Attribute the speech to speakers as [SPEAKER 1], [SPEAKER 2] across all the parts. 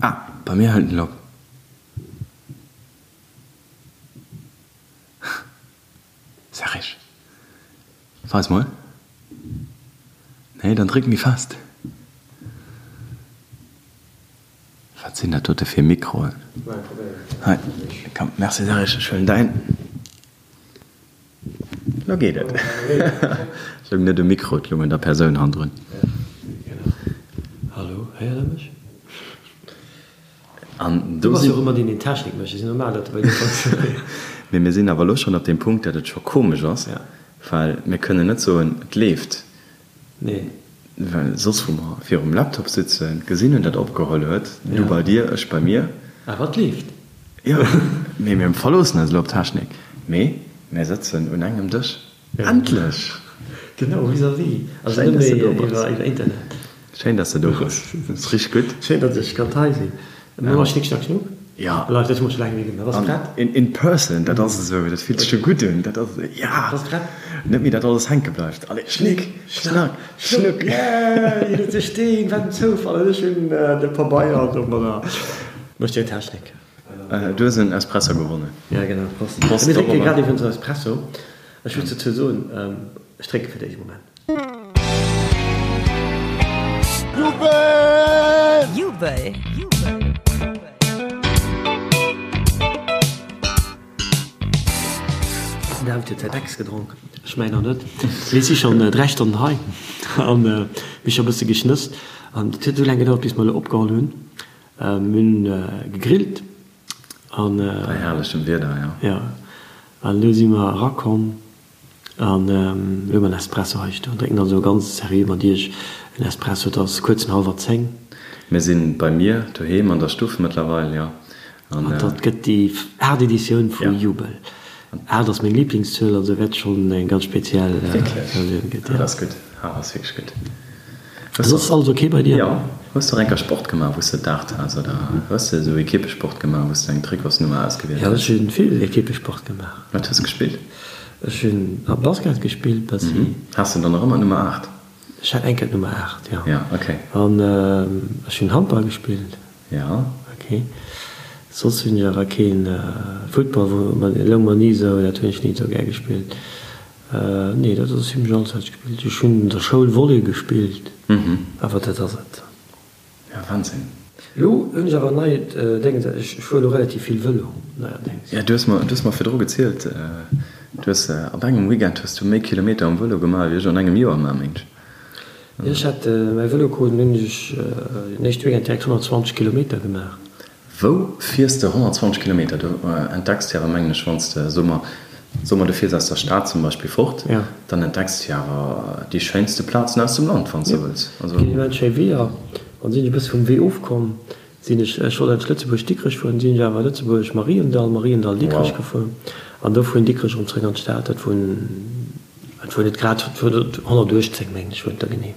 [SPEAKER 1] Ah, bei mir hëlt en op. Serge, weis mol. Nee, dann dréck méi fest. Wat sinn dat dote fir Mikroen? Hei, komm, merci Serge, ech huelen däin. Lo geet et. Et loung net um Mikro, et loung un der Persoun hannendrun.
[SPEAKER 2] Hallo, héiert der mech?
[SPEAKER 1] An
[SPEAKER 2] Du
[SPEAKER 1] do
[SPEAKER 2] bass jo
[SPEAKER 1] sinn.
[SPEAKER 2] och ëmmer deen, deen Technik mécht. Et ass normal, datt de bei dir funktionéiert.
[SPEAKER 1] Mee mir sinn awer elo schonn op deem Punkt, datt et scho komesch ass, well mir kënnen net soen, et leeft.
[SPEAKER 2] Nee.
[SPEAKER 1] Well soss, wou mer virum Laptop sitzen, gesinn hunn, dat opgeholl huet, du bei dir, ech bei mir.
[SPEAKER 2] Awer et leeft.
[SPEAKER 1] Jo, mee mir verloossen eis elo op d'Technik. Mee mir sëtzen un engem Dësch. Endlech!
[SPEAKER 2] Genau, vis-à-vis. Also
[SPEAKER 1] Schéin,
[SPEAKER 2] net
[SPEAKER 1] dass de
[SPEAKER 2] méi
[SPEAKER 1] do bass.
[SPEAKER 2] iwwer Internet.
[SPEAKER 1] Schéin, dass de do bass. Dat ass richteg gutt.
[SPEAKER 2] Schéin, datt ech kann hei sinn. Mir maache Schnick, Schnack, Schnuck.
[SPEAKER 1] Jo.
[SPEAKER 2] Live, dat hu mer scho laang net méi gemaach. Bass prett?
[SPEAKER 1] In, in person, dat ass esou, dat fillt sech scho gutt un. Dat ass, ja!
[SPEAKER 2] Bass prett?
[SPEAKER 1] Net méi, datt alles hänke bleift. Allez, Schnick, Schnack, Schnuck!
[SPEAKER 2] Yay! Hien huet de Steen, wat en Zoufall! An ech hunn de Pabeier domadder. Mécht jo Technik.
[SPEAKER 1] Du hues en Espresso gewonnen.
[SPEAKER 2] Ja, genau. Prost.
[SPEAKER 1] Prost
[SPEAKER 2] Mir drénke
[SPEAKER 1] dorobber.
[SPEAKER 2] grad iwwrens en Espresso. Ech muss dozou soen, ech drénke fir d'éischt e Moment.
[SPEAKER 3] Jubel! Jubel!
[SPEAKER 2] Den David huet säin Ex gedronk, ech mäin nach net. Mir si schonn 3 Stonnen hei an mir hu scho e bësse geschnësst. An et huet esou laang gedauert, bis mer elo opgeholl hunn. Mir hunn gegrillt an.
[SPEAKER 1] Bei herrlechem Wieder, jo.
[SPEAKER 2] Jo, an elo si mer erakomm an elo hu mer en Espresso hei stoen, drénken also ganz seriö mat iech en Espresso. Et ass kuerz no hallwer 10.
[SPEAKER 1] Mir si bei mir doheem an der Stuff mëttlerweil, jo.
[SPEAKER 2] An dat gëtt déi aacht Editioun vu Jubel. Aacht ass meng Liblingszuel, also wäert schonn eng ganz speziell Versioun gëtt, jo.
[SPEAKER 1] Dat ass gutt, aacht ass wierklech gutt.
[SPEAKER 2] Soss alles ok bei dir?
[SPEAKER 1] Jo. Hues de och enker Sport gemaach wous de d'Aacht has oder hues de esou Ekippesport gemaach wous de eng Trikotsnummer ausgewielt
[SPEAKER 2] Jo,
[SPEAKER 1] hues?
[SPEAKER 2] ech hunn vill Ekippesport gemaach.
[SPEAKER 1] Wat hues de gespillt?
[SPEAKER 2] Ech hunn a Basket gespillt bessi.
[SPEAKER 1] Has de dann nach ëmmer d'Nummer 8?
[SPEAKER 2] Ech hat eng Kéier d'Nummer 8, jo.
[SPEAKER 1] Jo, ok.
[SPEAKER 2] An ech hunn Handball gespillt.
[SPEAKER 1] Jo.
[SPEAKER 2] Ok. Soss hunn ech awer keen Futtball, wou loung mer ni esou, dat hunn ech ni esou gär gespillt. Nee, dat ass zimlech alles wat ech gespillt hunn. Ech hunn an der Schoul Volley gespillt, awer dat ass et.
[SPEAKER 1] Ja, Wahnsinn.
[SPEAKER 2] Elo hunn ech awer en neit Déngens, ech fuere elo relativ vill Vëlo neierdéngs.
[SPEAKER 1] Ja, du hues mer, du hues mer virdru gezielt, du hues op engem Weekend hues du méi Kilometer um Vëlo gemaach wéi ech an engem Joer maachen, mengt ech.
[SPEAKER 2] Jo, ech hat mäi Vëlo krut an hunn ech den éischte Weekend direkt 120 Kilometer gemaach.
[SPEAKER 1] Wou fiers de 120 Kilometer? Du entdecks jo awer, mengen ech, wann s de, soe mer, soe mer, du fiers aus der Stad zum Beispill fort, dann entdecks de jo awer déi schéinste Plazen aus dem Land, wann s de wëlls.
[SPEAKER 2] Also. Ginn immens schéi Weeër. An sinn ech e bësse vum Wee ofkomm, sinn ech, ech wollt eigentlech Lëtzebuerg-Dikrech fueren, sinn ech awer Lëtzebuerg-Mariendall, Mariendall-Dikrech gefuer an do vun Dikrech erëm zréck an d'Stad. Dat wunn, dat wuar net grad, dat wuar 118, mengen ech, wuar et da genee.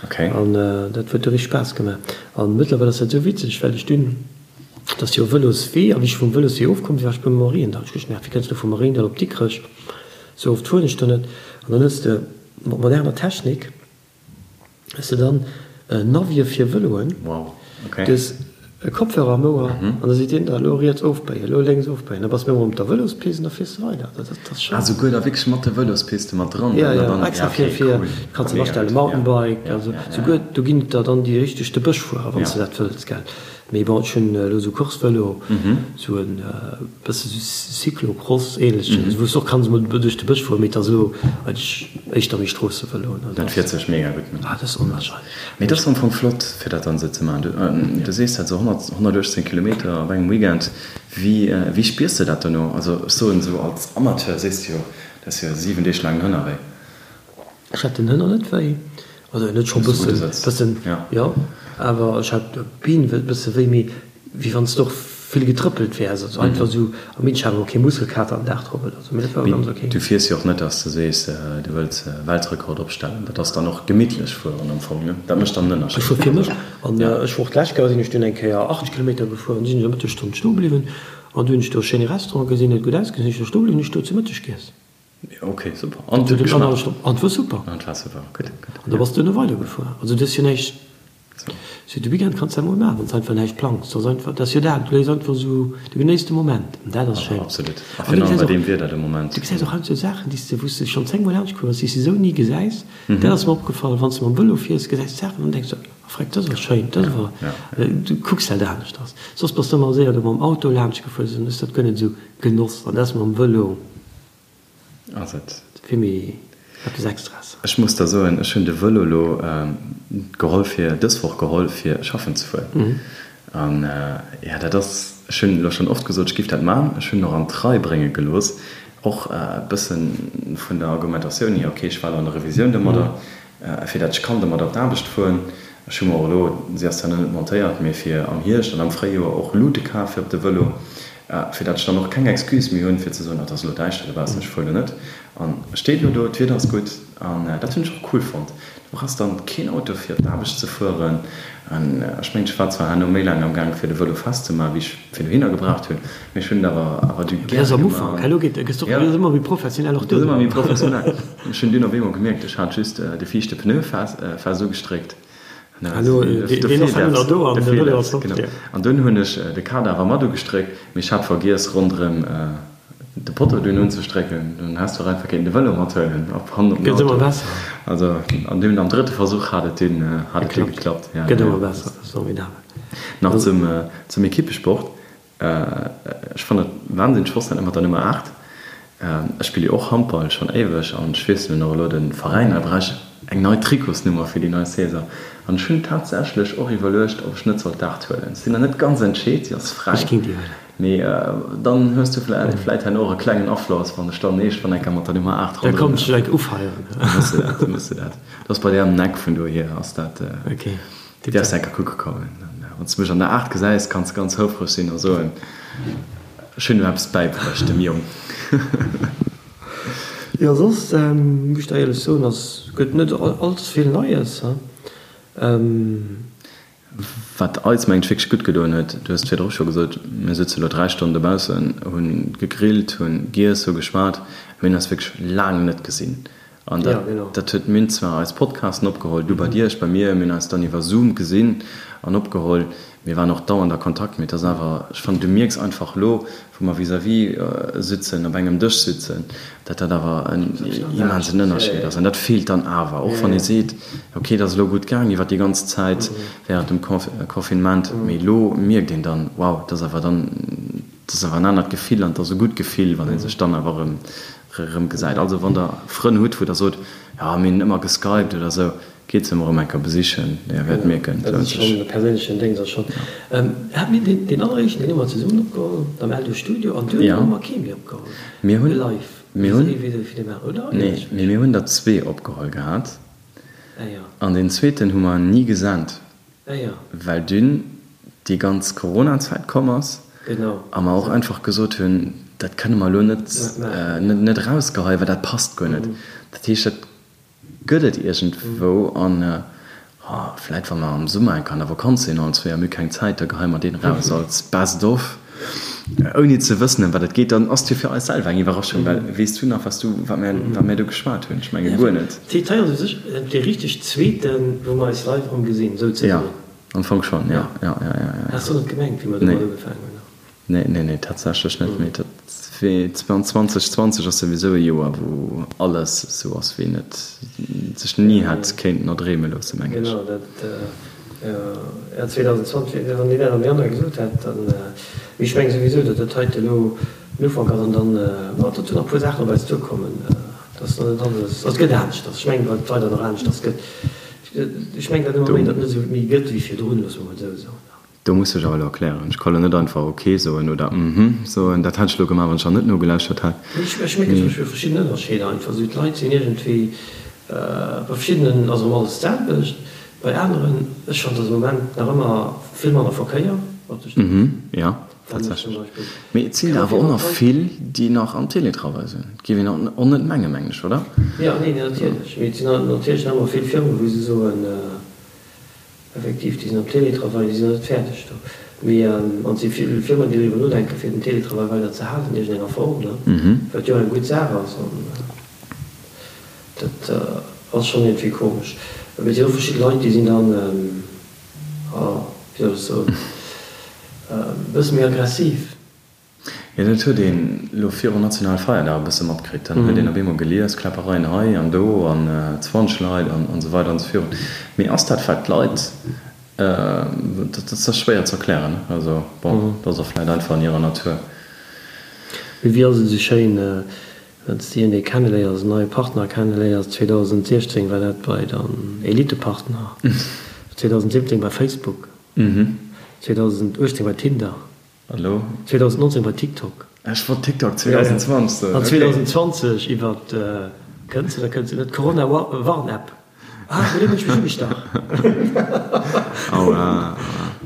[SPEAKER 1] Okay.
[SPEAKER 2] An dat huet du richteg Spaass gemaach. An mëttlerweil ass dat esou witzeg, well ech dunn, et ass jo e Vëloswee, a wéi ech vum Vëloswee ofkomm sinn, war ech beim Mariendall. Ech hu gemerkt, wéi kënns du vum Mariendall op Dikrech, esou oft fueren ech do net. An dann hues de mat moderner Technik hues de dann Navië fir Vëloen.
[SPEAKER 1] Wow, okay.
[SPEAKER 2] Du hues E Kopfhörer am Ouer an da seet deen der, elo riets ofbéien, elo lénks ofbéien. Da bass de méi op der Vëlospist an da fiers de weider. Dat ass schonn.
[SPEAKER 1] Ah, souguer da wierklech mat de Vëlospiste mat dran?
[SPEAKER 2] Jo, jo, extra fir, fir, kanns de astellen, Mountainbike, also souguer do ginn et der dann déi richteg de Bësch fueren, wann s de dat wëlls, gell. Mee bon, ech hunn elo esou Course-Vëlo, esou en bësse sou Cyclocross-ähnlechen, wou s de och kanns emol duerch de Bësch fueren, mee et ass elo eigentlech éischter méi Stroossevëlo.
[SPEAKER 1] Dat fiert sech mega gutt, ne?
[SPEAKER 2] Ah, dat ass onwahrscheinlech.
[SPEAKER 1] Mee et ass am Fong flott, fir dat dann esou ze maachen. Du sees dat esou, 100, 118 Kilometer op engem Weekend. Wéi, wéi spiers de dat dono? Also ech soen esou als Amateur sees de jo, dat ass jo 7 Deeg laang den Hënner wéi.
[SPEAKER 2] Ech hat den Hënner net wéi, also net scho bëssen, bëssen, jo, awer ech hat d'Been e bësse wéi, mee wéi wann s de och vill getrëppelt wäers, also einfach esou am Minsch, awer och kee Muskelkater am Dag drop oder esou, mee dat war ganz ok.
[SPEAKER 1] Du fiers jo och net, dass de sees, du wëlls e Weltrekord opstellen, dat ass dann och gemittlech fueren am Fong, ne? Dat mécht dann den Ënnerscheed.
[SPEAKER 2] Ech fuer fir mech an ech war och d'lescht Kéier sinn ech dunn eng Kéier 80 Kilometer gefuer an sinn ech eng Mëttesstonn stoe bliwwen an du hunn ech do e schéine Restaurant gesinn, huet gutt ausgesinn, sinn ech do stoe bliwwen, hunn ech do zu Mëtteg giess.
[SPEAKER 1] Ok, super. An et huet geschmaacht?
[SPEAKER 2] An et war super.
[SPEAKER 1] An et war super, gutt, gutt.
[SPEAKER 2] An da bass du duerno weidergefuer, also du hues jo näischt. Sou, de Weekend kanns de dat mol maachen, wann s de einfach näischt plangs. Dat ass einfach, dat ass jo dat, du léiss einfach esou, du genéiss de Moment an dat ass schéin.
[SPEAKER 1] Absolut, a virun allem bei deem Wieder de Moment.
[SPEAKER 2] Du gesäis och heiansdo Saachen, déi s de, wou s de schonn zéngmol laanscht komm bass, déi s de esou ni gesäis. Dat ass mer opgefall, wann s de mam Vëlo fiers, gesäis de Saachen an denks de, oh freck, dat ass awer schéin, dat ass awer, du kucks dat aneschters. Soss bass de ëmmer séier do mam Auto laanscht gefuer, dann hues de dat guer net esou genoss an dat ass mam Vëlo.
[SPEAKER 1] Ass et.
[SPEAKER 2] Fir méi eppes Extraes.
[SPEAKER 1] Ech muss der soen, ech hunn de Vëlo elo geholl fir, dës Woch geholl fir schaffen ze fueren. An jo, dat ass, ech hunn elo schonn oft gesot, ech géif dat man. Ech hunn en och an d'Rei brénge gelooss, och e bësse vun der Argumentatioun hier, ok, ech war elo an der Revisioun domadder, fir dat ech kann domadder op d'Aarbecht fueren. Ech hu mer och elo, si ass zwar nach net montéiert, mee fir am Hierscht an am Fréijoer och Luute kaf fir op de Vëlo, fir dat ech dann och keng Excuse méi hunn, fir ze soen, oh, et ass elo däischter dobaussen, ech fuer elo net. An e steet elo do, d'Wieder ass gutt an dat hunn ech och cool fonnt. Du brauchs dann keen Auto fir op d'Aarbecht ze fueren. An ech mengen, ech war zwar herno méi laang am Gaang fir de Vëlo festzemaachen, wéi ech fir dohinner gebraucht hunn, mee ech hunn et awer awer du
[SPEAKER 2] gäre gemaach. Am Ufank, elo geet, gëss du och ëmmer méi professionell och
[SPEAKER 1] duerno. Gëss ëmmer méi professionell. Ech hunn dunn op eemol gemierkt, ech hat just de viischte Pneu fest ugestréckt. An dunn hunn ech de Kader awer mat ugestréckt, mee ech hat vergiess ronderëm de Potto dunn unzestrécken. Dunn häss du och einfach kéinten de Vëlo mathuelen op hannen op den Auto. Also an dunn am drëtte Versuch hat et dunn geklappt. Nach zum Ekippesport. Ech fannen et wahnsinneg flott dat mat der Nummer 8. Ech spille jo och Handball schon éiweg an ech wiesselen och elo de Veräin. Da brauch ech eng nei Trikotsnummer fir déi nei Saison an ech hunn tatsächlech och iwwerluecht ob ech net soll d'Aacht huelen. Sinn nach net ganz entscheet, si ass fräi, mee dann hues du vläit herno och e klengen Afloss wann ech dann eescht wann enker mat der Nummer 8
[SPEAKER 2] ronderëm. Da kommt ech enk ufeieren.
[SPEAKER 1] Da muss de dat, muss de dat. Dat ass bei där am Eck vun dohier ass dat. Déi däerfs enker kucke kommen. Wann s de mech an der 8 gesäis, kanns de ganz houfreg sinn a soen, Ech hunn em eppes bäibruecht, dem Jong.
[SPEAKER 2] Jo, soss muss ech der éierlech soen, ass gëtt net all ze vill Neies.
[SPEAKER 1] Wat eis, mengen ech, wierklech gutt gedoen huet, du hues et virdru scho gesot, mir sëtze lo 3 Stonnen dobaussen, hu gegrillt, hu giess, hu geschwat, mir hunn eis wierklech laang net gesinn. An dat, dat huet, mir hunn zwar eis Podcasten opgeholl, du bei dir, ech bei mir, mir hunn eis dann iwwer Zoom gesinn an opgeholl, mir waren och dauernd a Kontakt, mee et ass awer, ech fannen, du mierks einfach elo, wou mer vis-à-vis sitzen, op engem Dësch sitzen, dat dat awer en immensen Ënnerscheed ass. An dat feelt dann awer, och wann ee seet, ok, et ass elo gutt gaang iwwer déi ganz Zäit während dem Confinement, mee elo mierkt een dann, wow, et ass awer dann, et ass awer en anert Gefill an et ass e gutt Gefill, wann ee sech dann awer erëm Erëm gesäit. Also wann der Frënn hutt wou der sot, jo mir hunn ëmmer geskypt oder sou, geet se emol erëm eng Kéier besichen, dir wäert mierken, et
[SPEAKER 2] lount sech. Dat ass schonn e perséinlechen Déngs ass schonn. Hat mir deen deen alleréischten deen hu mer zesummen opgeholl am Eldo Studio an duerno hu mer kee méi opgeholl
[SPEAKER 1] Mir hunn, live mir hunn, oder? Nee, mee mir hunn der zwee opgeholl gehat an deen zweeten hu mer ni gesent. Well dunn déi ganz Corona-Zäit komm ass a mer och einfach gesot hunn, dat kënne mer elo net net erausgeheien, well dat passt guer net. Dat heescht, dat gëtt et iergendwou an vläit wa mer am Summer eng Kéier an der Vakanz sinn allen zwee a mir hu keng Zäit, da geheie mer deen eraus als Best of, ouni ze wëssen ëm wat et geet. Dann ass et jo fir eis selwer eng Iwwerraschung, well weess du nach, wat du, wat mir, wat mir do geschwat hunn? Ech menge guer net.
[SPEAKER 2] D'Heet hei ass u sech dee richteg zweeten, wou mer eis live erëm gesinn, souzesoen.
[SPEAKER 1] Jo, am Fong schonn, jo. Jo, jo, jo, jo.
[SPEAKER 2] Has du net gemengt, wéi mer domat ugefaangen hunn?
[SPEAKER 1] Nee, nee, nee, tatsächlech net. Mee dat wee 2020 ass souwisou e Joer, wou alles esou ass, wéi een et sech ni hätt kéinten erdreeme loossen, mengen
[SPEAKER 2] ech. Genau, dat, jo, 2020, wann deen dat am Januar gesot hätt, dann, mee ech menge souwisou, datt dat heite elo den Ufank ass an dann, ma datt do nach e puer Saachen op eis duerkommen. Dass nach net alles, also et gëtt aneschters. Ech mengen, wat weider nach aneschters gëtt. Ech mengen dat ëmmer méi, datt net esou méi gëtt wéi virdrun, loosse mer mol esou soen.
[SPEAKER 1] Do muss ech awer elo erklären. Ech ka lo net einfach ok soen oder mhm soen. Dat hätt ech elo gemaach, wann ech der net nogelauschtert hätt.
[SPEAKER 2] Nee, ech mierken zum Beispill verschidden Ënnerscheeder einfach. Esou d'Leit sinn iergendwéi, bei verschiddenen ass erëm alles d'selwecht, bei aneren, ech fannen, dass am Moment nach ëmmer vill manner Verkéier op de Stroossen.
[SPEAKER 1] Mhm, jo. Tatsächlech. Mee et sinn der awer och nach vill, déi nach am Télétravail sinn. Dat géif een och net mengen, mengen ech, oder?
[SPEAKER 2] Jo, nee, natierlech. Mee et sinn natierlech nach ëmmer vill Firmen, wou se soen, effektiv, déi sinn am Télétravail, déi sinn nach net fäerdeg do. Mee an et si vill Firmen, déi driwwer nodenken, fir den Télétravail weider ze halen an iergendenger Form, ne? Wat jo eng gutt Saach ass. An dat ass schonn iergendwéi komesch. Mee et sinn och verschidde Leit, déi sinn dann. wéi soll ech soen, e bësse méi aggressiv.
[SPEAKER 1] Jo, dat huet een elo virun Nationalfeierdag e bësse matkritt. Dann huet een op eemol gelies, Kläppereien hei an do an 20 Leit an esou weider an esou virun. Mee ass dat, wat d'Leit, dat ass schwéier ze erklären, ne? Also bon, dat ass och vläicht einfach an hirer Natur.
[SPEAKER 2] Mee wéi ass et esou schéin, wann s de iergendee kenneléiers, en neie Partner kenneléiers, 2016 war dat bei der Elitepartner, 2017 bei Facebook, 2018 bei Tinder.
[SPEAKER 1] An elo?
[SPEAKER 2] 2019 bei TikTok.
[SPEAKER 1] Ech wollt TikTok 2020 soen.
[SPEAKER 2] An 2020 iwwer, kënnt se oder kënnt se net, d'Corona-Warn-App. Ah, bei deem hunn ech mech ugestach.
[SPEAKER 1] Aua, aua.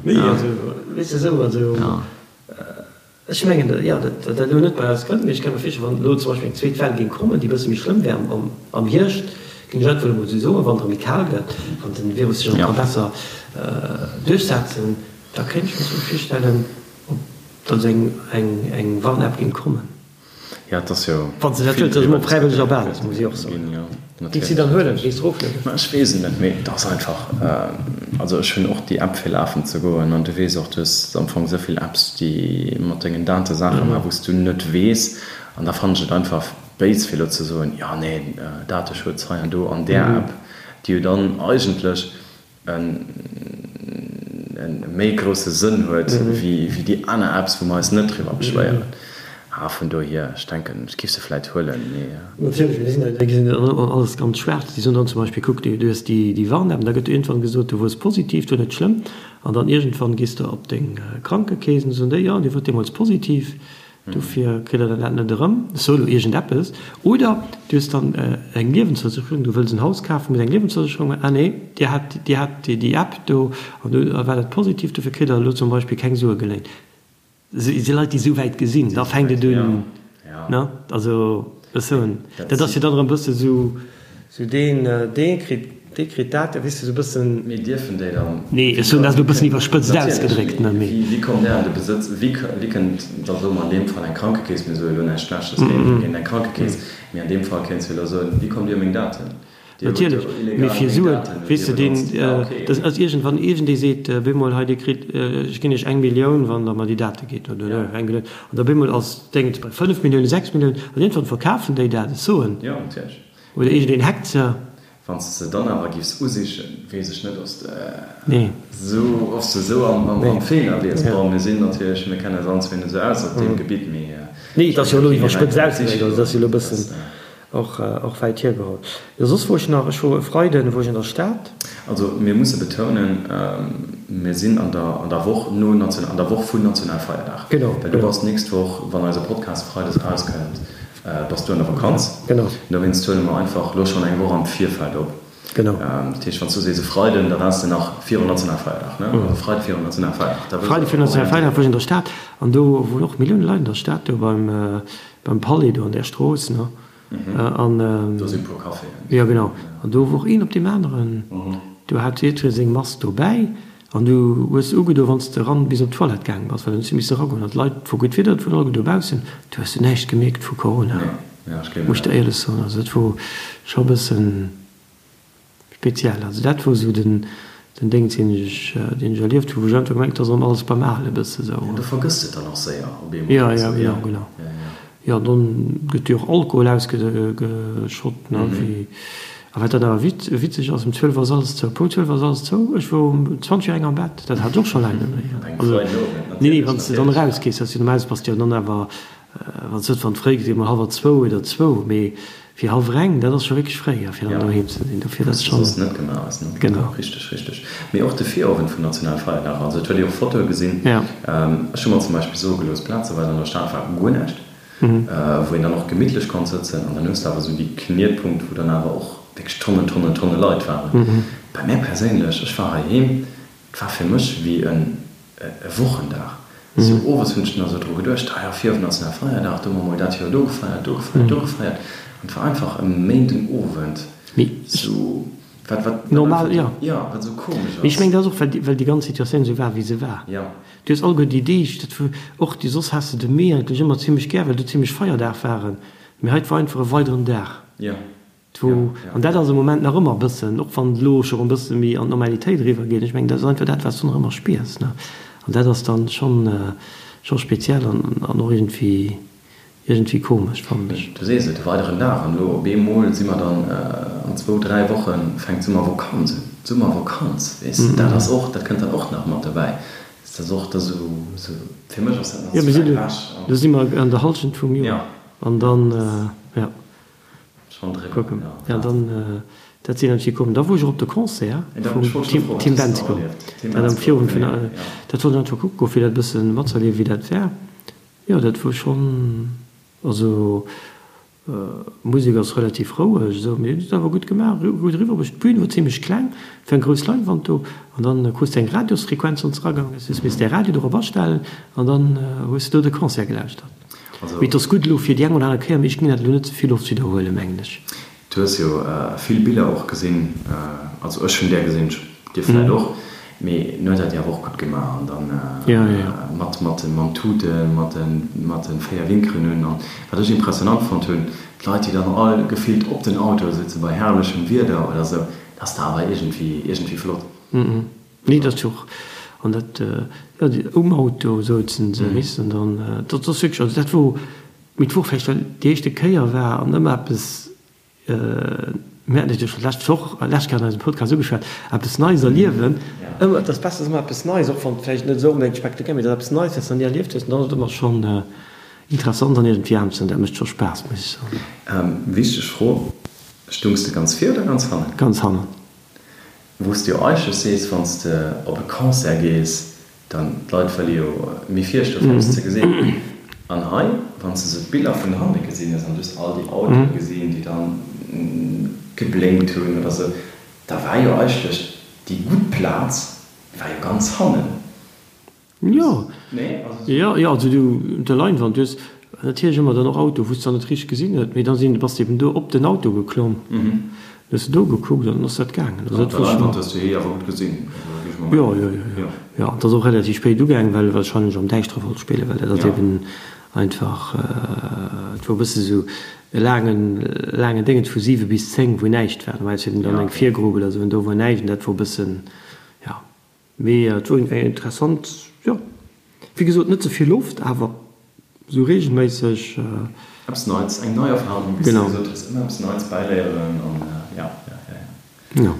[SPEAKER 2] Nee, also, weess de, esou, also, ech mengen, jo, datt dat elo net bei eis kënnt, mee ech ka mir virstellen, wann elo zum Beispill eng zweet Well géing kommen, déi e bësse méi schlëmm wär am Hierscht, géing ech einfach elo mol esou soen, wann et erëm méi kal gëtt, wann de Virus sech erëm ka besser duerchsetzen, Da kéint ech mir sou virstellen, ob da sou eng Warn-App géing kommen.
[SPEAKER 1] Jo, et ass jo.
[SPEAKER 2] Wann s de dat wëlls, dat ass ëmmer op fräiwëlleger Basis, muss ech och soen. Géings de dann huelen? Géings de eroflueden?
[SPEAKER 1] Ma ech weess et net, mee et ass einfach, also ech hunn och déi App fir lafen ze goen an du weess och, du hues am Fong esou vill Apps, déi mat dengen Date Saache maachen, wou s du net weess an da fannen ech et einfach béis fir elo ze soen, jo nee, Dateschutz hei an do an där App, déi jo dann eigentlech e méi grousse Sënn huet wéi déi aner Apps, wou mer eis net driwwer beschwéieren. A vun dohier, ech denken, ech géif se vläit huelen, mee.
[SPEAKER 2] Natierlech, mir sinn déi gesinn dann alles ganz schwaarz. Déi soen dann zum Beispill, kuck, du hues déi Warn-App an da gëtt iergendwann gesot, du wuars positiv, du net schlëmm. An dann iergendwann gees de op deng Krankekeess an da soen déi, jo, dir wuart deemools positiv. Dofir kritt der dat net erëm. Ech soe lo iergendeppes. Oder du hues dann eng Liewensversécherung, du wëlls en Haus kafen, muss eng Liewensversécherung maachen. Ah nee, dir hat, dir hat déi App do an do war dat positiv, dofir kritt der elo zum Beispill keng Sue geléint. Si Leit, déi esou wäit gesinn, da fänkt et un, ne? Also ech soen, dat ass jo dann erëm e bësse sou. Sou deen, dee kritt, dee kritt dat, weess de, sou e bëssen.
[SPEAKER 1] Mee dierfen déi dann.
[SPEAKER 2] Nee, ech soen dat elo e bëssen iwwerspëtzt ausgedréckt, ne,
[SPEAKER 1] mee. Wéi kommt där an de Besëtz, wéi, wéi kënnt da, soe mer an deem Fall eng Krankekeess, mir soe elo näischt Schlechtes géint eng Krankekeess, mee an deem Fall kéints du elo soen, wéi kommt Dir u meng Daten?
[SPEAKER 2] Dir hutt jo
[SPEAKER 1] Natierlech,
[SPEAKER 2] mee
[SPEAKER 1] illegal
[SPEAKER 2] fir
[SPEAKER 1] meng
[SPEAKER 2] Suen,
[SPEAKER 1] Daten hutt
[SPEAKER 2] weess
[SPEAKER 1] Dir
[SPEAKER 2] de, deen,
[SPEAKER 1] benotzt. Ja, okay.
[SPEAKER 2] dat ass iergendwann, iergendee seet bemol, hei Dir kritt, ech ginn Iech eng Millioun, wann Der mer déi Date gitt, oder
[SPEAKER 1] Ja.
[SPEAKER 2] eng Millioun, an da bemol ass d'Déngens bei 5 Milliounen, 6 Milliounen, an iergendwann verkafen déi dat, ech soen.
[SPEAKER 1] Jo, natierlech.
[SPEAKER 2] Oder iergendeen hackt se.
[SPEAKER 1] Wann s de se dann awer giffs usichen, weess ech net, ob s de esou, ob s de esou am Feeler wiers. Bon, mir sinn natierlech, mir kennen eis allen zwee net esou aus op deem Gebitt, mee
[SPEAKER 2] Nee, et ass jo elo iwwerspëtzt ausgedréckt, also et ass jo elo e bëssen och, och wäit hiergeholl. Jo, soss wor ech nach, ech wor e Freiden wor ech an der Stad.
[SPEAKER 1] Also mir musse betounen, mir sinn an der, an der Woch no National, an der Woch vun Nationalfeierdag.
[SPEAKER 2] Genau,
[SPEAKER 1] Well du bass d'nächst Woch, wann eise Podcast freides erauskënnt, Bass du an der Vakanz?
[SPEAKER 2] Genau.
[SPEAKER 1] Dowéinst huele mer einfach elo schonn eng Woch am Virfeld op.
[SPEAKER 2] Genau.
[SPEAKER 1] Dat heescht, wann s du sees e Freiden, da waars de nach virun Nationalfeierdag, ne? Also Freide virun Nationalfeierdag.
[SPEAKER 2] Da wëss Freide virun Nationalfeierdag wor ech an der Stad an do woren och Millioune Leit an der Stad, do beim, beim Palais do an där Strooss, ne? An.
[SPEAKER 1] Do si puer Caféen.
[SPEAKER 2] Jo, genau. An do wor een op deem aneren. Do hat jiddweree seng Mask dobäi. An du hues se ugedo wann s de eran bis op d'Toilette gaang bass, well dann hues du misse eragoen. An d'Leit, et wor gutt Wieder, et woren alleguer dobaussen, du hues du näischt gemierkt vu Corona, muss ech der éierlech soen. Also dat wor scho e bëssen speziell. Also dat wor esou den den Déngs deen ech deen ech erlieft hu, wou ech einfach gemengt, et ass erëm alles beim Ale bësse sou.
[SPEAKER 1] Du vergëss et dann och séier
[SPEAKER 2] op eemol. Jo, jo, genau, genau. Jo, dann gëtt jo och Alkohol ausgeschott, ne, wéi. A wat dann awer witzeg ass, um 12 ass alles zou, Punkt 12 ass alles zou. Ech wor um 20 vir eng am Bett, dat hat ech och scho laang net méi. Also, nee, nee, wann s de dann erausgees, dass du normalerweis bass de jo dann awer, wann s net, wann et fréi gëtt, emol hallwer zwou oder zwou, mee fir hallwer eng, dat ass scho wierklech fréi, a fir dann doheem ze sinn. Dofir, dat ass
[SPEAKER 1] schonn. Soss net gemaach ass, ne?
[SPEAKER 2] Genau.
[SPEAKER 1] Richteg, richteg. Mee och de Virowend vum Nationalfeierdag, also et huet ee och Fotoe gesinn. Ech hu mer zum Beispill soe gelooss, plazeweis an der Stad war guer näischt. wou een dann och gemittlech konnt sëtzen an dann hues de awer esou déi Knietpunkt, wou dann awer och wierklech Tonnen, Tonnen, Tonne Leit waren. Bei mär perséinlech, ech war heiheem, et war fir mech wéi en e Wochendag. Sou owes hunn ech dann esou dru geduecht, ah jo, virowend ass nach Feierdag, do hu mer mol dat Joer do gefeiert, do gefeiert, do gefeiert an et war einfach e Méindenowend sou, wat, wat
[SPEAKER 2] Normal, jo.
[SPEAKER 1] Jo, wat esou komesch
[SPEAKER 2] Mee ech
[SPEAKER 1] ass.
[SPEAKER 2] mengen, dat ass och, well déi, well déi ganz Situatioun esou war, wéi se war.
[SPEAKER 1] Jo.
[SPEAKER 2] Du hues alleguer déi Deeg, dat wor och déi, soss has de de Mee eigentlech ëmmer zimlech gär, well do zimlech Feierdag waren, mee hei 't war einfach e weideren Dag.
[SPEAKER 1] Jo.
[SPEAKER 2] 't. Wou, an dat ass am Moment nach ëmmer e bëssen, och wann et elo scho rëm e bësse méi an d'Normalitéit eriwwer geet, ech mengen, dat ass einfach dat, wat s du nach ëmmer spiers, ne. An dat ass dann schonn, scho speziell an, an och iergendwéi, iergendwéi komesch, fannen ech.
[SPEAKER 1] Du sees et, e weideren Dag an elo op eemol si mer dann an zwou, dräi Woche fänkt d'Summervakanz un. D'Summervakanz, weess de, dat ass och, dat kënnt dann och nach mat dobäi. Dat ass och da sou, sou, fir mech ass dat nach
[SPEAKER 2] Jo,
[SPEAKER 1] ze
[SPEAKER 2] mir
[SPEAKER 1] wäit
[SPEAKER 2] sinn,
[SPEAKER 1] ewech an.
[SPEAKER 2] do si mer an der Hallschent vum Joer an dann, jo.
[SPEAKER 1] Schon driwwer,
[SPEAKER 2] Kucken.
[SPEAKER 1] ja.
[SPEAKER 2] Ja, dann, dat sinn eng kommen. Da wor ech och op de Concert vum Tim, Tim Bendzko. Dat am Virowend vun, dat wollt ech einfach kucke goen, fir dat e bësse matzerliewen, wéi dat war. Jo, dat wor schonn, also d'Musek ass relativ roueg esou, mee huet et awer gutt gemaach, gutt eriwwerbruecht. D'Bün wor zimlech kleng, et war eng grouss Leinwand do an dann krus de eng Radiosfrequenz, wann s de eragaangen bass, hues misst däi Radio dorop astellen an dann hues de do de Concert gelauschtert. Mee et ass gutt elo fir déi eng oder aner Kéier, mee ech ginn dat elo net ze vill oft widderhuelen, mengen ech.
[SPEAKER 1] Du hues jo vill Biller och gesinn, also ech hunn där gesinn, dir vläit och, mee en huet dat jo awer och gutt gemaach an dann mat mat mam Tuten, mat de mat de 4 Winkeren un. An wat ech impressionant fonnt hunn, d'Leit déi dann all gefillt op den Autoe sëtze bei herrlechem Wieder oder sou, dat ass da awer iergendwéi iergendwéi flott.
[SPEAKER 2] Nee, dat ass jo och, an dat, jo, déi um Auto souzen se, weess de, an dann, dat ass wierklech, also dat wor, mee et wor vläicht, well déi éischte Kéier war an ëmmer eppes, mir haten et jo scho d'lescht Woch, lescht Kéier an eisem Podcast ugeschwat, eppes Neies erliewen, ëmmer, et ass besser, ëmmer eppes Neies, och wann et vläicht net esou onbedéngt spektakulär, mee et ass eppes Neies, wat s de nach ni erlieft hues, an dann ass et ëmmer schonn interessant an iergendwéi anescht, an dat mécht scho Spaass, muss ech soen.
[SPEAKER 1] Wichteg Fro, Stungs de ganz vir oder ganz hannen?
[SPEAKER 2] Ganz hannen.
[SPEAKER 1] Wou s de jo eigentlech sees, wann s de op e Concert gees, dann, d'Leit wëlle jo méi vir stoen, fir eppes ze gesinn. An hei, wann s de sou d'Biller vun hanne gesinn hues an du hues all déi Autoe gesinn, déi dann geblénkt hunn oder sou, da war jo eigentlech déi gutt Plaz war jo ganz hannen.
[SPEAKER 2] Jo, jo, jo, also du, op der Leinwand, du hues natierlech ëmmer dann och Auto, wou s de dann net richteg gesinn huet, mee da sinn, bass de eben do op den Auto geklomm, hues de do gekuckt an dann ass dat gaangen.
[SPEAKER 1] Also dat war schonn. Op der Leinwand hues du hie awer gutt gesinn, also géif ech mol
[SPEAKER 2] mengen. Jo, jo, jo, jo, jo, et ass och relativ spéit ugaangen, well e wahrscheinlech am Däischtere wollt spillen, well dat ass eben einfach, et wor e bësse sou e laangen, laangen Déngens vu 7 bis 10, wou näischt war. Normalerweis huet een dann eng Virgrupp oder sou an do wor näischt an dat wor e bëssen, jo. Mee et wor eng interessant, jo, wéi gesot net ze vill Loft, awer sou regelméisseg.
[SPEAKER 1] Eppes Neits, eng nei Erfahrung, wéi s de gesot hues, ëmmer eppes Neits bäiléieren an jo, jo, jo, jo.
[SPEAKER 2] Jo.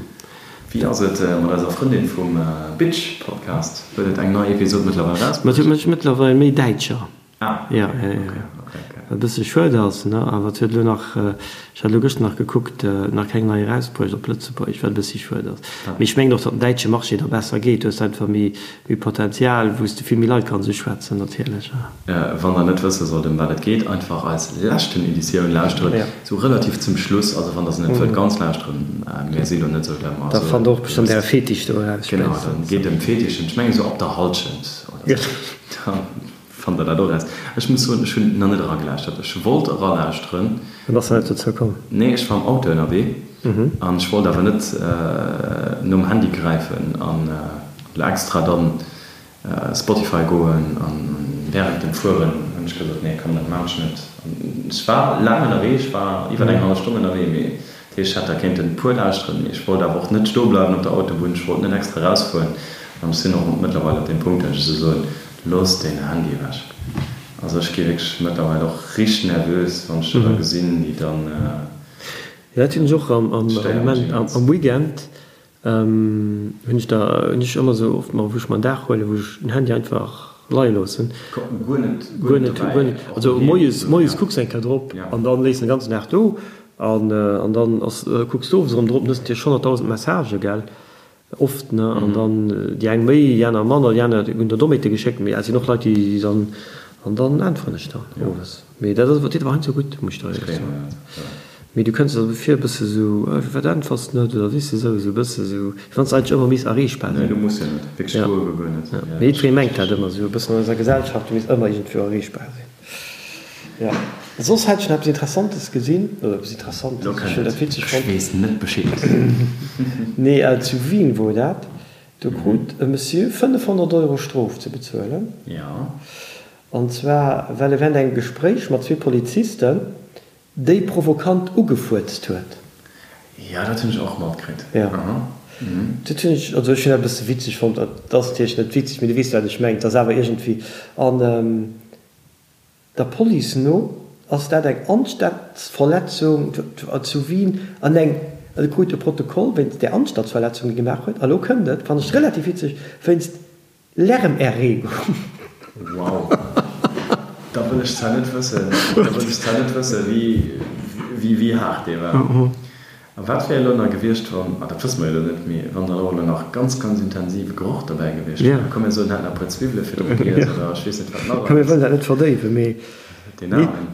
[SPEAKER 1] Wéi ass et mat eiser Frëndin vum Bitch Podcast? Huet et eng nei Episod mëttlerweil
[SPEAKER 2] erausbruecht? Ma et huet mëttlerweil méi Däitscher. Ah, ja, ja, ja, ja. Okay, okay. Wat e bësse schued ass, ne? Awer et huet elo nach, ech hat elo gëschter nach gekuckt, nach keng nei erausbruecht op Lëtzebuergesch, wat e bëssi schued ass. Mee ech mengen och, datt den däitsche Marché da besser geet. Du hues einfach méi, méi Potenzial, wou s de vill méi Leit kanns uschwätzen natierlech.
[SPEAKER 1] Wann der net wësse sollt, ëm wat et geet, einfach eis leschten Editioun lauschteren, sou relativ zum Schluss. Also wann der se net wëllt ganz lauschteren, mir si lo net sou der
[SPEAKER 2] Da fannt der och bestëmmt äre Fetisch do eraus
[SPEAKER 1] Genau, dann geet ëm Fetischen, ech mengen sou ab der Halschent oder sou. Fannt der dat och eraus? Ech muss soen, ech hunn nach net eragelauschtert. Ech wollt eralauschteren.
[SPEAKER 2] An bass net dozou komm?
[SPEAKER 1] Nee, ech war am Auto ënnerwee an ech wollt awer net nom Handy gräifen an elo extra dann Spotify goen an während dem Fueren hunn ech gesot, nee komm, dat maan ech net. An ech war laang ënnerwee, ech war iwwer eng hallef Stonn ënnerwee, mee dat heescht, ech hätt da kéinten e puer lauschteren, mee ech wollt awer och net stoe bleiwen op der Autobunn, ech wollt net extra erausfueren an ech sinn och mëttlerweil op deem Punkt, dat ech esou soen, Looss deen Handy ewech. Also ech gi wierklech mëttlerweil och richteg nervös, wann ech der da gesinn, déi dann.
[SPEAKER 2] Jo, dat hunn ech och am Moment, am Weekend hunn ech da, hunn ech ëmmer esou oft mol, wou ech mer en Dag huelen, wou ech den Handy einfach leie loossen.
[SPEAKER 1] Guer net, guer net dobäi.
[SPEAKER 2] Guer net, also moies, moies kucks eng Kéier drop an dann léiss den ganzen Dag do an dann ass, kucks de owes erëm drop, dann hues de natierlech 100.000 Messagen, gell. Oft, ne? An dann déi eng méi, déi aner manner, déi aner hunn der Dommheete geschéckt, mee et sinn och Leit, déi dann, an dann äntweren ech dann owes. Mee dat ass, deet awer heiansdo gutt, muss ech der éierlech soen. Mee du kënns der vir e bësse sou, firwat äntwers de net oder weess de sou, sou e bësse sou, wéi wann s de eigentlech ëmmer misst erreechbar
[SPEAKER 1] sinn. Nee, du muss jo net, wierklech guer, guer net.
[SPEAKER 2] Mee jiddweree mengt dat ëmmer sou e bëssen an eiser Gesellschaft, du misst ëmmer iergendwou erreechbar sinn. Jo, soss hat ech nach eppes Interessantes gesinn, oder eppes Interessantes, ech hunn dat witzeg
[SPEAKER 1] fonnt. Ech weess net Bescheed.
[SPEAKER 2] Nee, zu Wien wor dat, do krut e Monsieur 500 Euro Strof ze bezuelen.
[SPEAKER 1] Jo.
[SPEAKER 2] An zwar well e während engem Gespréich mat zwee Polizisten déi provokant ugefuerzt huet.
[SPEAKER 1] Jo, dat hunn ech och matkritt.
[SPEAKER 2] Jo. Dat hunn ech, also ech hunn dat e bësse witzeg fonnt. Dat ass natierlech net witzeg, mee du weess, wat ech mengen. Et ass awer iergendwéi, an der Police no ass dat eng Anstandsverletzung zu Wien an eng, e krut e Protokoll wéinst där Anstandsverletzung, déi e gemaach huet. A lo kënnt et, fannen ech relativ witzeg, wéinst Lärmerregung.
[SPEAKER 1] Wow, da wëll ech zwar net wëssen, da wëll ech zwar net wëssen, wéi, wéi haart dee war. A wat wär elo nach gewiescht, wann, ah dat wësse mer jo elo net, mee wann dann och elo nach ganz, ganz intensive Geroch dobäi gewiescht wär? Komm mir soen, en hätt nach e puer Zwiwwele virdru giess oder ech weess net wat nach
[SPEAKER 2] Komm mir wëllen dat net verdéiwen, mee.
[SPEAKER 1] Deen Aarmen.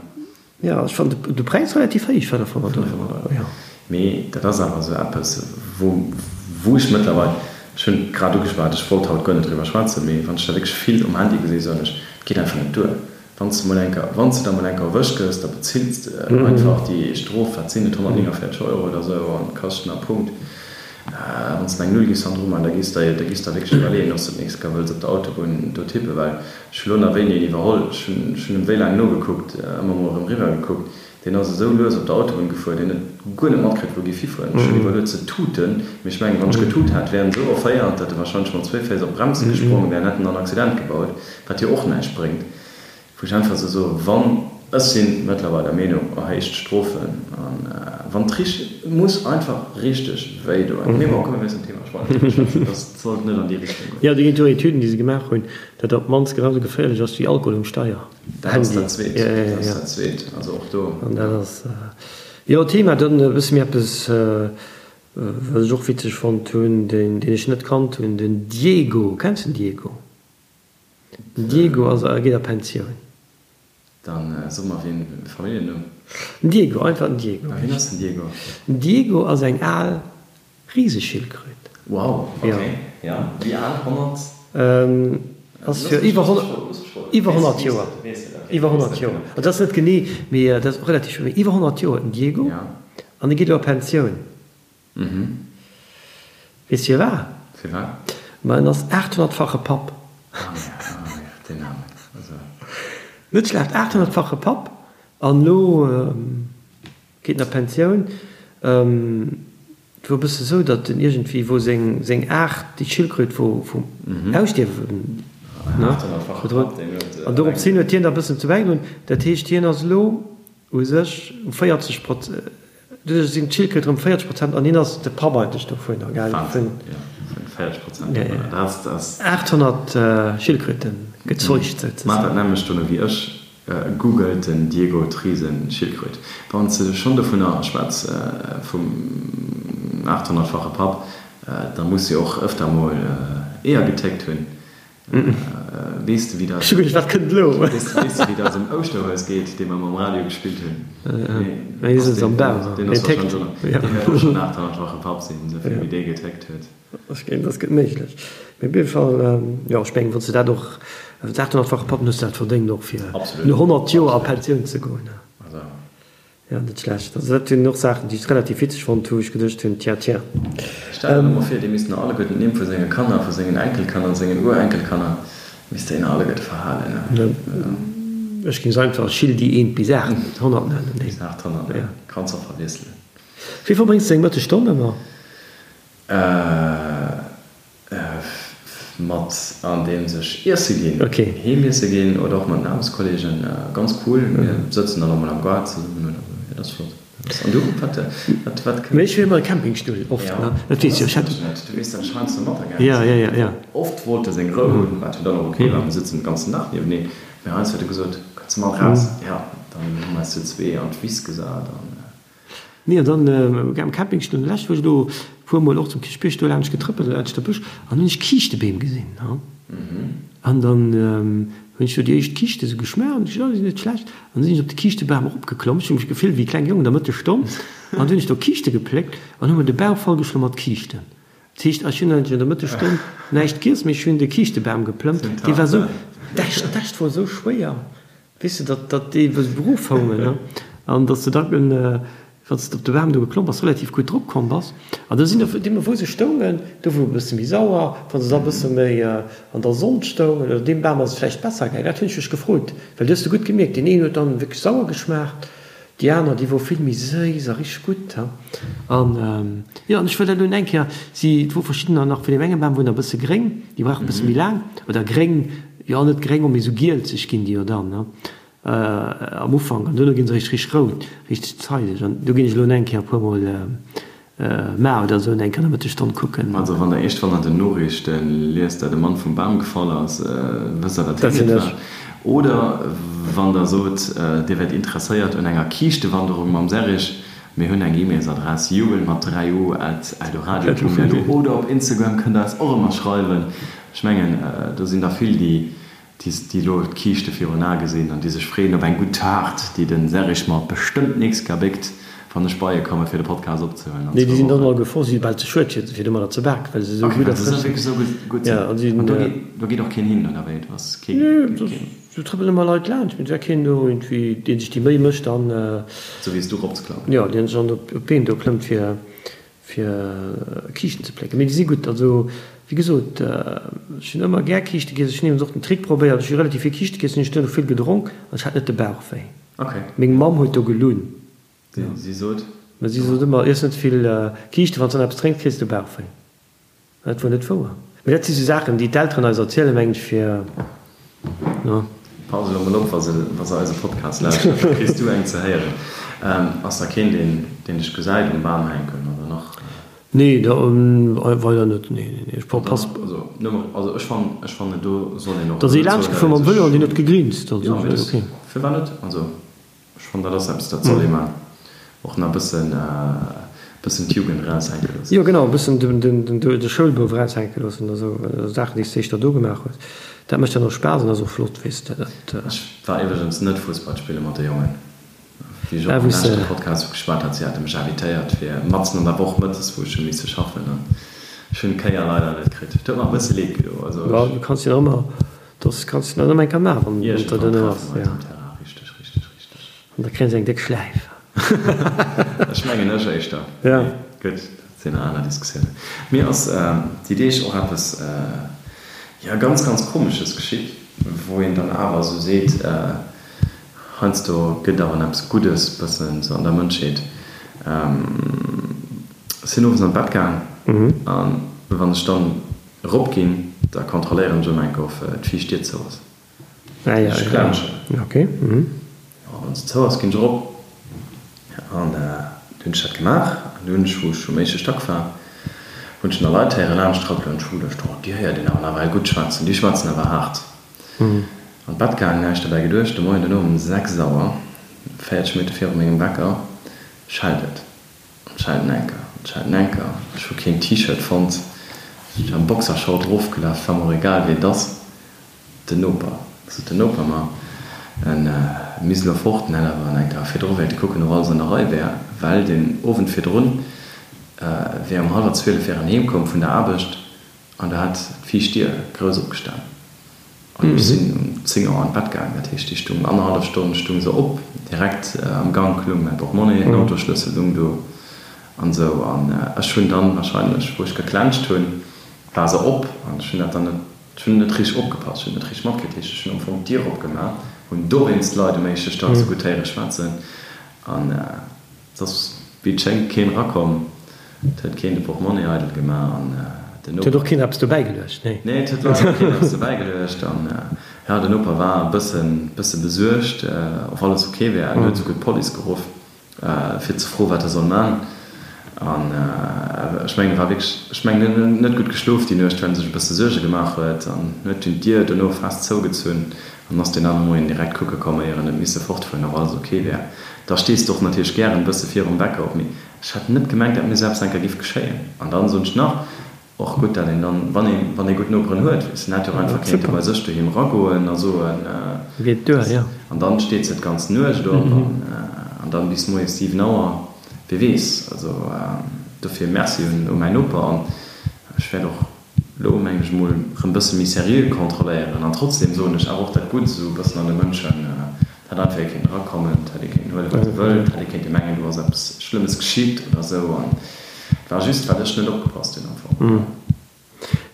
[SPEAKER 2] Jo, ech fannen de Präis relativ héich, 500 Euro, jo.
[SPEAKER 1] Mee dat ass awer esou eppes, wou, wou ech mëttlerweil, ech hunn grad ugeschwat, ech wollt haut guer net driwwer schwätzen, mee wann ech da wierklech vill um Handy gesinn, soen ech, et geet einfach net duer. Wann s de mol eng Kéier, wann s de da mol eng Kéier erwëscht gëss, da bezills de einfach déi Strof, wat sinn et, 149 Euro oder esou, an Kaschten a Punkt. Wann s de eng Null giffs hannendru maachen, da giffs de der, da giffs der wierklech iwwerleeën, ob s de d'nächst Kéier wëlls op der Autobunn do tippen, well ech hu lo nach wéini een iwwerholl, ech hunn, ech hunn em wéi laang nogekuckt, ëmmer mol erëm riwwer gekuckt, deen ass esou lues op der Autobunn gefuer, deen huet guer net matkritt, wou giff hifueren. Ech hunn iwwerluet ze tuten, mee ech mengen, wann ech getut hätt, wär en esou erféiert, datt e wahrscheinlech mat zwéi Féiss op d'Bremse gesprongen wär an hätt en dann Accident gebaut, wat jo och näischt bréngt. Wou ech einfach esou soen, wann, ech si mëttlerweil der Meenung, erhéicht d'Strofen an wann et richteg, et muss einfach richteg wéi doen. Mee bon, komm mir wiesselen d'Thema, ech wollt net driwwer schwätzen, dat sollt net an déi Richtung goen.
[SPEAKER 2] Jo, do ginn et jo Etüden, déi se gemaach hunn, datt op d'mannst genau esou geféierlech ass wéi Alkohol um Steier.
[SPEAKER 1] Dat ass dat Zweet, dat ass dat Zweet, also och do.
[SPEAKER 2] An dat ass, jo, Thema. Dann e bësse méi eppes, wat ech och witzeg fonnt hunn, deen ech net kannt hunn, den Diego. Kenns de den Diego? Den Diego ass a geet a Pensioun.
[SPEAKER 1] Dann so mer wien, Familljennumm?
[SPEAKER 2] Den Diego, einfach den Diego.
[SPEAKER 1] A wien ass den Diego?
[SPEAKER 2] Den Diego ass eng al Riseschildkröt.
[SPEAKER 1] Wow, ok, jo. Wéi al? 100?
[SPEAKER 2] Ass fir iwwer 100 Joer. Iwwer 100 Joer. Also dat ass net genee, mee dat ass relativ, mee iwwer 100 Joer den Diego. An e geet elo a Pensioun. Weess firwat?
[SPEAKER 1] Firwat?
[SPEAKER 2] Ma en ass 800-fache Papp.
[SPEAKER 1] Ah ja, ah ja, deen Aarmen. Also.
[SPEAKER 2] Net schlecht, 800-fache Papp an elo geet en a Pensioun. Et wor e bësse sou, datt en iergendwéi, wou seng, seng Aart, déi Schildkröt wor vum Ausstierwen, ne, bedroht. An dorops hin huet hien da e bëssen zu bäigedroen. Dat heescht, hien ass elo u sech u 40 Proz. Doduerch sinn d'Schildkröte rëm 40 Prozent an hien ass de Papp eigentlech dovunner, gell?
[SPEAKER 1] Wahnsinn, jo, vun 40 Prozent dovunner, dat ass.
[SPEAKER 2] 800 Schildkröte gezeugt souzesoen.
[SPEAKER 1] Maacht dat nämmlecht dono wéi ech, googelt den Diego Triesen Schildkröt. Wann s de schonn dovunner schwätz, vum 800-fache Papp, da muss jo och ëfter mol Eeër getéckt hunn. Weess de wéi dat.
[SPEAKER 2] Ech hu geduecht, wat kënnt elo?
[SPEAKER 1] Weess de wéi dat um Ouschterhues geet, dee mer mam Radio gespillt hunn?
[SPEAKER 2] Nee, dee sëtzt am Bam.
[SPEAKER 1] Deen ass warscheinlech och, deen wäert och schonn 800-fache Papp sinn, esou vill wéi dee getéckt huet.
[SPEAKER 2] Ech géing, dat gëtt méiglech. Mee op jidde Fall, jo, ech mengen, wann s de dat och, 800-fache Papp, dann hues de dat verdéngt och fir no 100 Joer a Pensioun ze goen.
[SPEAKER 1] Also.
[SPEAKER 2] Jo, net schlecht. Also dat sinn och Saachen, déi ech relativ witzeg fonnt hu, wou ech geduecht hunn, tiens, tiens.
[SPEAKER 1] Stell der emol vir, dee misst nach alleguerten d'Nimm vu senge Kanner, vu sengen Enkelkanner, sengen Urenkelkanner, misst deen alleguerte verhalen, ne?
[SPEAKER 2] Ech géing se einfach Schildi 1 bis 800 nennen.
[SPEAKER 1] Bis 800, ne? Kanns och verwiesselen.
[SPEAKER 2] Wéi verbréngs de deng Mëttesstonn ëmmer?
[SPEAKER 1] Mat andeems ech iesse ginn, heem iesse ginn oder och mat den Aarbechtskolleegen. Ganz cool, mir sëtzen dann och mol am Gaart zesummen oder esou. Jo, dat ass flott. An du, wat, wat, wat
[SPEAKER 2] kënnt? Ech wier ëmmer e Campingstull, oft, ne? Dat weess jo, ech
[SPEAKER 1] hätt. Du weess, dat ech heiansdo mat
[SPEAKER 2] Ja, ja, ja, ja.
[SPEAKER 1] Oft wollt e seng Rou hunn, wat jo dann och ok war, mir sëtzen den ganzen Dag nieweneen. Mee heiansdo huet e gesot, Kënns de mat raus? Jo, dann hu mer eis zu zwee an d'Wiss gesat an.
[SPEAKER 2] Nee, an dann am Campingstull, lech wou ech elo puer mol och zum Kierchbierg do laanscht getrëppelt, laanscht de Bësch, an hunn ech Kiischtebeem gesinn, ha. An dann hunn ech do déi éischt Kiischte sou geschmaach, an ech gesot, oh, déi sinn net schlecht. An da sinn ech op de Kiischtebam eropgeklomm, ech hu mech gefillt wéi e klenge Jong an der Mëttesstonn, an du hunn ech do Kiischte gepléckt an hu mer de Bauch vollgeschloen mat Kiischten. Dat heescht, ech hunn eigentlech an der Mëttesstonn näischt giess, mee ech hunn de Kiischtebam geplëmmt, dee war sou, d'Äscht, d'Äscht wor sou schwéier. Weess de, datt, datt déi wou se beruff houngen, ne, an datt s de da, wann s de op de Bam do geklomm bass, relativ gutt drop komm bass. An do sinn der, deemno wou se stoungen, do wor e bësse méi sauer, wa se da e bësse méi an der Sonn stoungen, oder deem Bam ass et vläicht besser gaangen. Dat hunn ech mech gefrot, well du hues de gutt gemierkt, deen een huet dann wierklech sauer geschmaacht. Déi aner, déi wor vill méi séiss a richteg gutt. An, jo, an ech wëll dat elo eng Kéier, si, et wor verschiddener nach vun deem enge Bam, wor nach e bësse gréng, déi brauchen e bësse méi laang, oder gréng, jo, net gréng, mee esou gielzeg ginn déi jo dann, ne, am Ufank, an duerno ginn se richteg, richteg rout, richteg zeideg. An do ginn ech elo eng Kéier e puermol Mar oder esou eng Kéier an der Mëttesstonn kucken.
[SPEAKER 1] Also wann der iergendwann an den Noriichte liest, dat e Mann vum Bam gefall ass, wësst der, dat hien et war. Oder wann der sot, dir wäert interesséiert un enger Kiischtewanderung mam Serrig, mir hunn eng E-Mailsadress, jubel mat 3 u at eldoradio.lu oder op Instagram kënnt der eis och ëmmer schreiwen. Ech mengen, do sinn der vill, déi déi elo d'Kiischte virun Ae gesinn an déi sech freeën op eng gutt Taart, déi de Serrig mer bestëmmt d'nächst Kéier béckt, wann ech bei e komme fir de Podcast opzehuelen an
[SPEAKER 2] Nee, déi sinn dann all gefror, si si bal ze schued fir domadder ze baken, well se esou
[SPEAKER 1] gutt a frësch sinn. Esou gutt sinn. An
[SPEAKER 2] si
[SPEAKER 1] do geet, do geet och keen hin, oder wéi? Do ass kee,
[SPEAKER 2] Nee, do do trëppelen ëmmer Leit laanscht, mee et war keen do iergendwéi, dee sech déi Méi mécht an.
[SPEAKER 1] Sou wéi s du eropzeklappen.
[SPEAKER 2] Jo, deen sech dann op d'Been do klëmmt fir. Fir Kiischten ze plécken. Mee déi si gutt. Also, wéi gesot, ech hunn ëmmer gär Kiischte giess. Ech hunn iwwregens och den Trick probéiert, ech hu relativ vill Kiischte giess, hunn ech duerno vill gedronk an ech hat net de Bauch wéi. Meng Mamm huet do gelunn.
[SPEAKER 1] Si sot?
[SPEAKER 2] Si sot ëmmer, Iess net vill Kiischten, wann s de dann eppes drénks, kriss de Bauch wéi. Dat wor net wouer. Mee dat si sou Saachen, déi d'Elteren eis erzielen, mengen ech, fir,
[SPEAKER 1] no. Pass elo mol op, wa se, wa se eise Podcast lauschteren, da kriss du eng ze héieren. Ass da keen, deen, deen dech gesäit um Bam hänken, oder nach?
[SPEAKER 2] Nee, da weider net. Nee, nee, nee, ech pass.
[SPEAKER 1] Also, nëmme, also ech fannen, ech fannen, do soll een och.
[SPEAKER 2] Da si laanscht gefuer mam Vëlo an deen huet gegrinst,
[SPEAKER 1] also,
[SPEAKER 2] jo, mee
[SPEAKER 1] ok. Firwat net? Also. Ech fannen dat ass eppes dat soll ee man. Och nach bëssen bëssen d'Jugend eraushänke loossen.
[SPEAKER 2] Jo genau, e bëssen de Schoulbouf eraushänke loossen oder esou Saachen déi s de éischter do gemaach hues. Dat mécht dann och Spaass an ass och flott, weess de.
[SPEAKER 1] Dat. Ech war iwwregens net Fussball spille mat de Jongen, wéi ech och am leschte Podcast geschwat hat. Si hate mech invitéiert fir matzen an der Woch mëttes, wou ech hu misse schaffen an ech hunn d'Kéier leider net kritt. Et huet mer e bësse leed gedo.
[SPEAKER 2] Also ech. Du kanns jo nach ëmmer Dass kanns de dann ëmmer eng Kéier maachen, wann et der duerno ass.
[SPEAKER 1] Iergendwann treffe mer eis um Terrain, richteg, richteg, richteg.
[SPEAKER 2] An da kréien se eng déck Schläif.
[SPEAKER 1] Ech mengen ech éischter.
[SPEAKER 2] Ja.
[SPEAKER 1] Mee gutt, dat sinn aner Diskussiounen. Mir ass déi Deeg och eppes, jo, ganz, ganz Komesches geschitt, wou een dann awer esou seet, heiansdo gëtt awer eppes Guddes bëssen esou an der Mënschheet. Ech sinn owes an d'Bett gaang an wann ech dann Erop ginn, da kontrolléieren ech ëmmer eng Kéier of d'viischt Dier zou ass.
[SPEAKER 2] Ech
[SPEAKER 1] klenschen. Jo, wann se zou ass, ginn ech erop. An du hunn ech dat gemaach. An du hunn ech, wou ech um éischte Stack war, hunn ech nach Leit héieren laanscht trëppelen. An ech hu geduecht, oh, déi héiert een awer nawell gutt schwätzen, déi schwätzen awer haart. An d'Bett gaang, näischt derbäi geduecht. De Moien duerno um 6 Auer, 40 Minutte viru mengem Wecker, schellt et. Schelten Enker, schelten Enker, ech hu keen T-Shirt fonnt, ech am Boxershort erofgelaf, war mer och egal wéi et ass. Den Noper, sot den Noper mer, en misst elo fort, en hätt awer enker virdru wéilte kucken, ob alles an der Rei wär, well den Owend virdrun wär um hallwer 12 wär en heem komm vun der Aarbecht an do hat d'viischt Dier grouss opgestan. An ech sinn um 10 Auer an d'Bett gaangen, dat heescht, déi stung annerhallef Stonn stung se op, direkt am Gank lung mäi Portmonni, den Autoschlëssel lung do an esou. An ech hunn dann wahrscheinlech, wou ech geklenscht hunn, war se op an ech hunn dat dann net, ech hunn net richteg opgepasst, ech hunn net richteg matkritt. Dat heescht, ech hunn am Fong d'Dier opgemaach, hunn dowéinst d'Leit um éischte Stack esou gutt héiere schwätzen an. Et ass wéi et schéngt keen erakomm, et huet keen de Portmonni eidel gemaach an
[SPEAKER 2] den Noper. Et huet och keen eppes dobäi geluecht, nee.
[SPEAKER 1] Nee, et huet leider och keen eppes dobäi geluecht an jo, den Noper war e bëssen, bësse besuergt, of alles ok wär. En huet souguer d'Police geruff, fir ze froen, wat e soll man. An ech mengen, e war wierklech, ech mengen, en huet net gutt geschlof déi Nuecht, well en sech e bësse Suerge gemaach huet an huet dunn d'Dier dono fest zougezunn an ass deen anere Moien direkt kucke komm, éier en huet misse fortfueren, ob alles ok wär. Da stees de och natierlech gären e bësse virum Wecker op, mee ech hat net gemengt, dat mir esou eppes enker giff geschéien. An dann soen ech nach, och gutt, dat een dann, wann een, wann ee gutt Noperen huet, weess, en hätt jo och einfach kéinte bei sech doheem eragoen a soen,
[SPEAKER 2] Geet duer, jo.
[SPEAKER 1] An dann steet se d'ganz Nuecht op an, an dann bis moies 7 Auer, wie weess. Also dofir Merci un, u mäin Noper an ech wäert och elo, mengen ech emol, erëm bësse méi seriö kontrolléieren. An trotzdem soen ech awer och dat Gutt esou e bëssen an de Mënschen, Et hätt einfach ee kéinten erakommen, et hätt ee kéinten huelen, wat e wëllt, et hätt ee kéinte mengen, do ass eppes Schlëmmes geschitt oder esou. An et war just, well ech net opgepasst hunn am
[SPEAKER 2] Fong.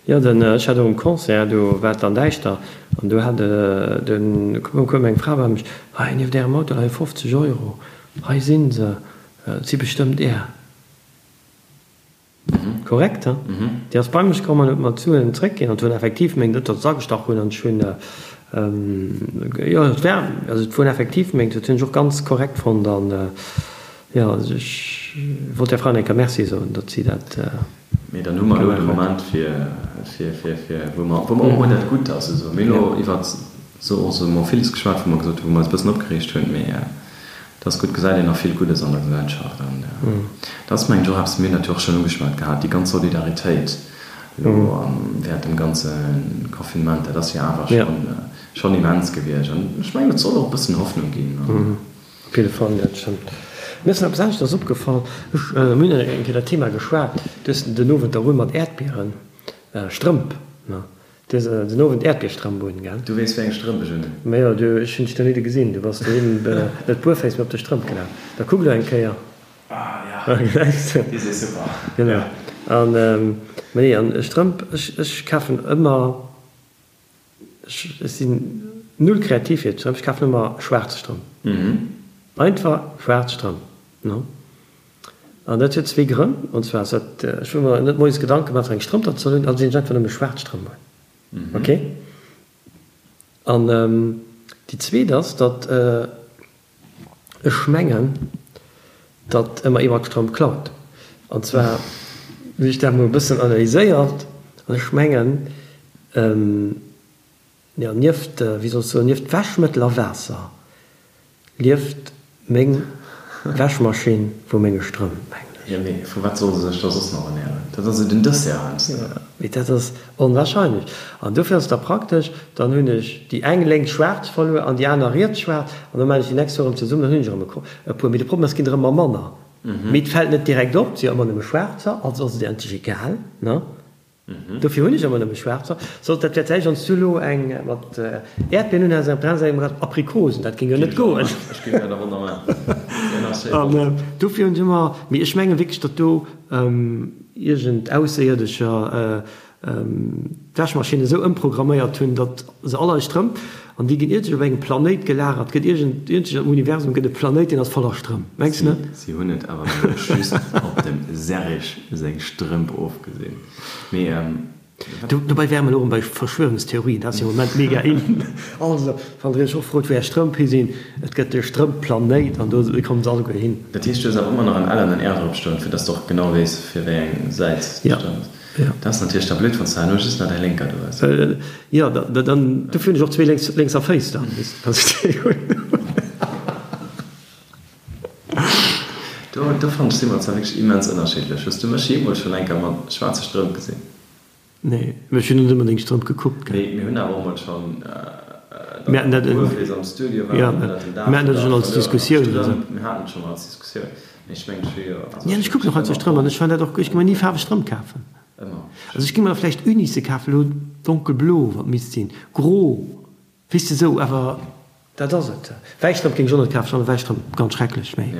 [SPEAKER 2] Jo, den, ech hat och um Concert, do war et dann däischter an do hat den, koum eng Fra bei mech, Hei, nieft Ärem Auto leie 50 Euro. Hei si se, et si bestëmmt Är. Korrekt, he? Déi ass bei mech komm an huet mer d'Suen zréckginn an et hunn effektiv meng, net datt se agestach hunn an ech hunn, jo et war, also et wunn effektiv meng, dat hunn ech och ganz korrekt fonnt an jo, also ech wollt där Fra nach eng Kéier Merci soen, datt si dat.
[SPEAKER 1] Mee dann hu mer elo de Moment fir, fir, fir, fir, wou mer, wou mer och emol dat Gutt ass esou. Mir hunn elo iwwert esou och esou emol villes geschwat, wou mer gesot hunn, wou mer eis e bëssen opgereegt hunn, mee et ass gutt, gesäit een nach vill Guddes an der Gesellschaft an dat ass mengen ech och eppes, mir hunn dat jo och schonn ugeschwat gehat, déi ganz Solidaritéit elo während dem ganze Confinement, dat ass jo awer schonn, schonn immens gewiescht an ech mengen et soll och e bëssen Hoffnung ginn.
[SPEAKER 2] Op jidde Fall, dat stëmmt. Mir ass nach eppes aneschters opgefall. Ech, mir hunn eng Kéier dat Thema geschwat, du hues den Owend der un mat Äerdbieren, Strëmp, ne? Du hues den Owend Äerdbierstrëmp un, gell?
[SPEAKER 1] Du weess, wéi eng Strëmp ech un hunn.
[SPEAKER 2] Majo, du, ech hunn dech do nidde gesinn, du bass doheem net buerféiss, mee op de Strëmp gelaf. Da kuck elo eng Kéier.
[SPEAKER 1] Ah, ja,
[SPEAKER 2] Gesäis de?
[SPEAKER 1] Déi si super.
[SPEAKER 2] Genau. An, mä nee, an Strëmp, ech, ech kafen ëmmer. Ech sinn null kreativ fir Strëmp, ech kafen ëmmer schwaarz Strëmp. Einfach schwaarz Strëmp, ne? An dat huet zwee Grënn, an zwar ass dat, ech wëll mer net moies Gedanke maachen, wat fir eng Strëmp dat soll hunn, also sinn ech einfach nëmme schwaarz Strëmp un, ok? An déi zweet ass, datt ech mengen, datt ëmmer ee mat Strëmp klaut. An zwar hunn ech dat mol e bëssen analyséiert an ech mengen, jo, nieft, wéi soll ech soen, nieft Wäschmëttel a Waasser lieft meng Wäschmaschinn vu menge Strëmp, mengen ech.
[SPEAKER 1] Jo, mee vu wat soll se sech da soss nach ernären? Dat ass jo den Dessert heiansdo.
[SPEAKER 2] Jo, mee dat ass onwahrscheinlech. An dofir ass et da praktesch, dann hunn ech déi eng lénks schwaarz verluer an déi aner riets schwaarz an da maachen ech déi nächst Woch erëm zesummen, dann hunn ech erëm e puer. Mee de Problem ass, et ginn der ëmmer manner. Mee et fält net direkt op, et si jo ëmmer nëmme schwaarzer, also ass et endlech egal, ne? Dofir hunn ech ëmmer nëmme schwaarzer. Sollt dat wäert vläicht, wann s du elo eng mat Äerdbieren hunn häss, eng op der aner Säit eng mat Aprikosen, dat géing jo net goen.
[SPEAKER 1] Ech géing dat awer ëmmer maachen.
[SPEAKER 2] An dofir hunn ech ëmmer, mee ech menge wierklech, datt do iergend Ausséierdescher d'Wäschmaschinn esou ëmprogramméiert hunn, datt se all eis Strëmp, an déi ginn iergendwou op engem Planéit gelagert, gëtt iergend, iergendwou am Universum gëtt e Planéit, deen ass voller Strëmp. Mengs de net?
[SPEAKER 1] Si hunn et awer nëmme just op dem Serrig seng Strëmp ofgesinn. Mee
[SPEAKER 2] wat. Dobäi wäre mer elo erëm bei Verschwörungstheorien, dat ass jo am Moment mega in. Also, wann der iech och frot, wou är Strëmp hi sinn, et gëtt de Strëmp-Planéit an do kommen se alleguer hin.
[SPEAKER 1] Dat heescht, du hues awer ëmmer nach en L an en R drop stoen, fir dass de och genau weess, fir wéi eng Säit de Strëmp. Dat ass natierlech da blöd, wann s de herno just nach däi lénker do hues.
[SPEAKER 2] Jo, dann, dofir hunn ech och zwee lénks, lénkser Féiss dann, weess de, dass ech déi hunn.
[SPEAKER 1] Do, do fannen ech, si mer zwar wierklech immens ënnerschiddlech. Hues du mech jeemools schonn eng Kéier mat schwaarze Strëmp gesinn?
[SPEAKER 2] Nee, mä ech hunn net ëmmer deng Strëmp gekuckt,
[SPEAKER 1] gell. Mee mir hunn awer och mol schonn,
[SPEAKER 2] Mir haten dat,
[SPEAKER 1] Buerfees am Studio waren,
[SPEAKER 2] jo,
[SPEAKER 1] ënnert dem Daach
[SPEAKER 2] mir haten dat schonn als Diskussioun, also.
[SPEAKER 1] Mir haten et schonn als Diskussioun. Ech mengen ech hu jo,
[SPEAKER 2] also ech kucken och heiansdo Strëmp an ech fannen dat och, ech gi mer ni faarweg Strëmp kafen.
[SPEAKER 1] Ëmmer.
[SPEAKER 2] Also ech gi mer vläicht Unisse kafen, elo donkelblo, wat misst sinn, gro, weess de sou, awer dat ass et. Wäiss Strëmp géing ech och net kafen, ech fannen wäiss Strëmp ganz schrecklech, mee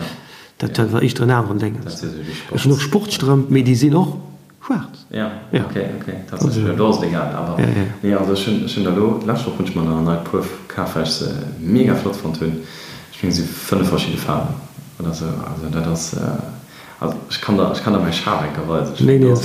[SPEAKER 2] dat war éischter en aneren Déngens. Ech hunn och Sportstrëmp, mee déi sinn och schwaarz.
[SPEAKER 1] Ja, ok, ok, tatsächlech, jo, do ass et egal, awer nee, also ech hunn, ech hunn der elo, d'lescht Woch hunn ech mer nach en neit Puer kaf, well ech se mega flott fonnt hunn. Ech mengen, et si 5 verschidde Faarwen oder esou, also dat ass, also ech kann der, ech kann der mäi Schaf eng Kéier weisen, ech hunn do,